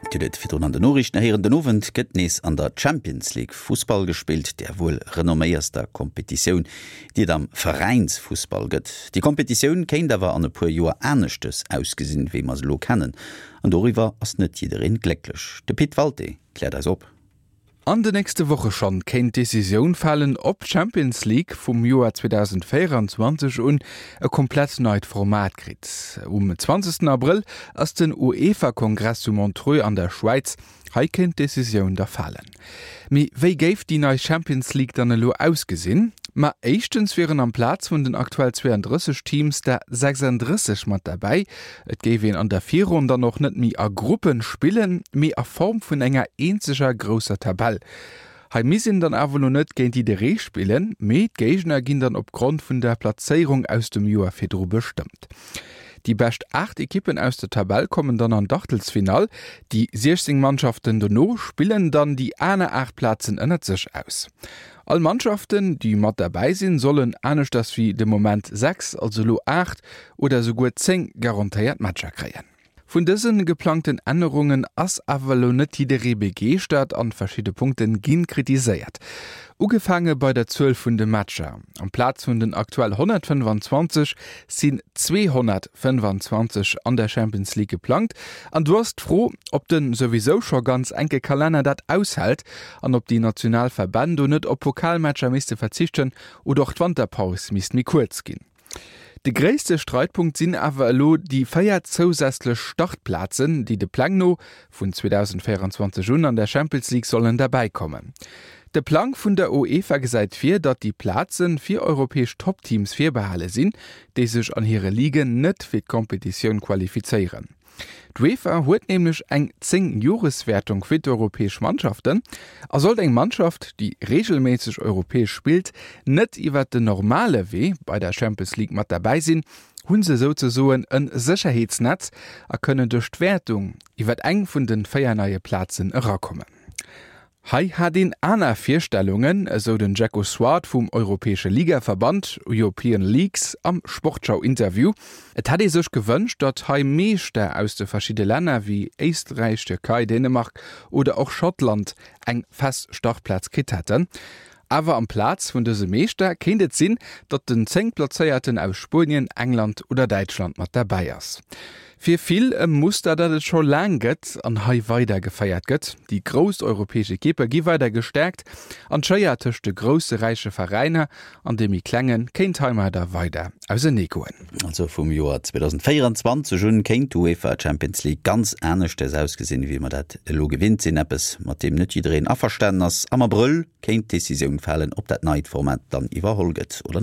Dir hutt et virdrun an den Noriichten héieren, Den Owend gëtt nees an der Champions League Fussball gespillt, där wuel renomméierster Kompetitioun, déi et am Veräinsfussball gëtt. Déi Kompetitioun kéint awer an e puer Joer aneschtes ausgesinn, wéi mer se elo kennen. An doriwwer ass net jiddereen glécklech. De Pit Walté kläert eis op. An de nächste Woche schonn kéint d'Decisioun falen, ob d'Champions League vum Joer 2024 un e komplett neit Format kritt. Um 20 Abrëll ass den UEFA-Kongress zu Montreux an der Schwäiz. Hei kéint d'Decisioun da falen. Mee wéi géif déi nei Champions League dann elo ausgesinn? Ma éischtens wieren amplaz vun den aktuell 32 Teams der 36 mat derbäi. Et géif een an der Virronn dann och net méi a Gruppen spillen, mee a Form vun enger eenzeger grousser Tabell. Hei misst een dann awer lo net géint jidderee spillen, mee d'Géigner ginn dann opgrond vun der Plazéierung aus dem Joer virdru bestëmmt. Déi bescht 8 Ekippen aus der Tabell kommen dann an d'Achtelsfinall, déi 16 Mannschaften dono spillen dann déi aner 8 Plazen ënnert sech aus. All Mannschaften, déi mat derbäi sinn, sollen, aneschters wéi de Moment 6, also elo 8 oder esouguer 10 garantéiert Matcher kréien. Vun dëse geplangten Ännerungen ass awer elo net jidderee begeeschtert an verschidde Punkte gi kritiséiert. Ugefaange bei der Zuel vun de Matcher, Amplaz vun den aktuell 125 sinn 225 an der Champions League geplangt an do ass d'Fro, ob de souwisou scho ganz enke Kalenner dat aushält an ob déi national Verbänn do net op Pokalmatcher misste verzichten oder och d'Wanterpaus misst méi kuerz ginn. De gréisste Streitpunkt sinn awer elo déi 4 zousätzlech Startplazen, déi de Pläng no vun 2024 un an der Champions League sollen derbäi kommen. De Plang vun der UEFA gesäit vir, datt déi Plaze fir europäesch Toppteams virbehale sinn, déi sech an hire Ligen net fir d'Kompetitioun qualifizéieren. D'UEFA huet nämlech eng 10 Joreswäertung fir d'europäesch Mannschaften a sollt eng Mannschaft, déi reegelméisseg europäesch spillt, net iwwer den normale Wee bei der Champions League mat derbäi sinn, hu se souzesoen e Sécherheetsnetz a kënnen duerch d'Wäertung iwwer eng vun de 4 neie Plazen erakommen. Hei hat een aner Virstellungen, esou den Jacko Swart vum europäesche Ligaverband, European Leagues, am Sportschau-Interview. Et hätt ee sech gewënscht, datt hei Meeschter aus de verschidde Länner wéi Éisträich, Tierkei, Dänemark oder och Schottland eng fest Startplaz kritt hätten. Awer amplaz vun dëse Meeschter kéint et sinn, datt den Zéngtplazéierten aus Spuenien, England oder Däitschland mat derbäi ass. Fir vill e Muster, dat et scho laang gëtt an hei weider geféiert gëtt. Déi grouss europäesch Ekippe gi weider gestäerkt an d'Schéier tëscht de grousse räiche Veräiner an de méi klenge kéint heimadder weider ausenee goen. Also vum Joer 2024 un kéint d'UEFA Champions League ganz aneschters ausgesinn, wéi mer dat elo gewinnt sinn. Eppes, mat deem net jiddereen averstanen ass. Am Abrëll kéint d'Decisioun falen, ob dat neit Format dann iwwerholl gëtt oder net.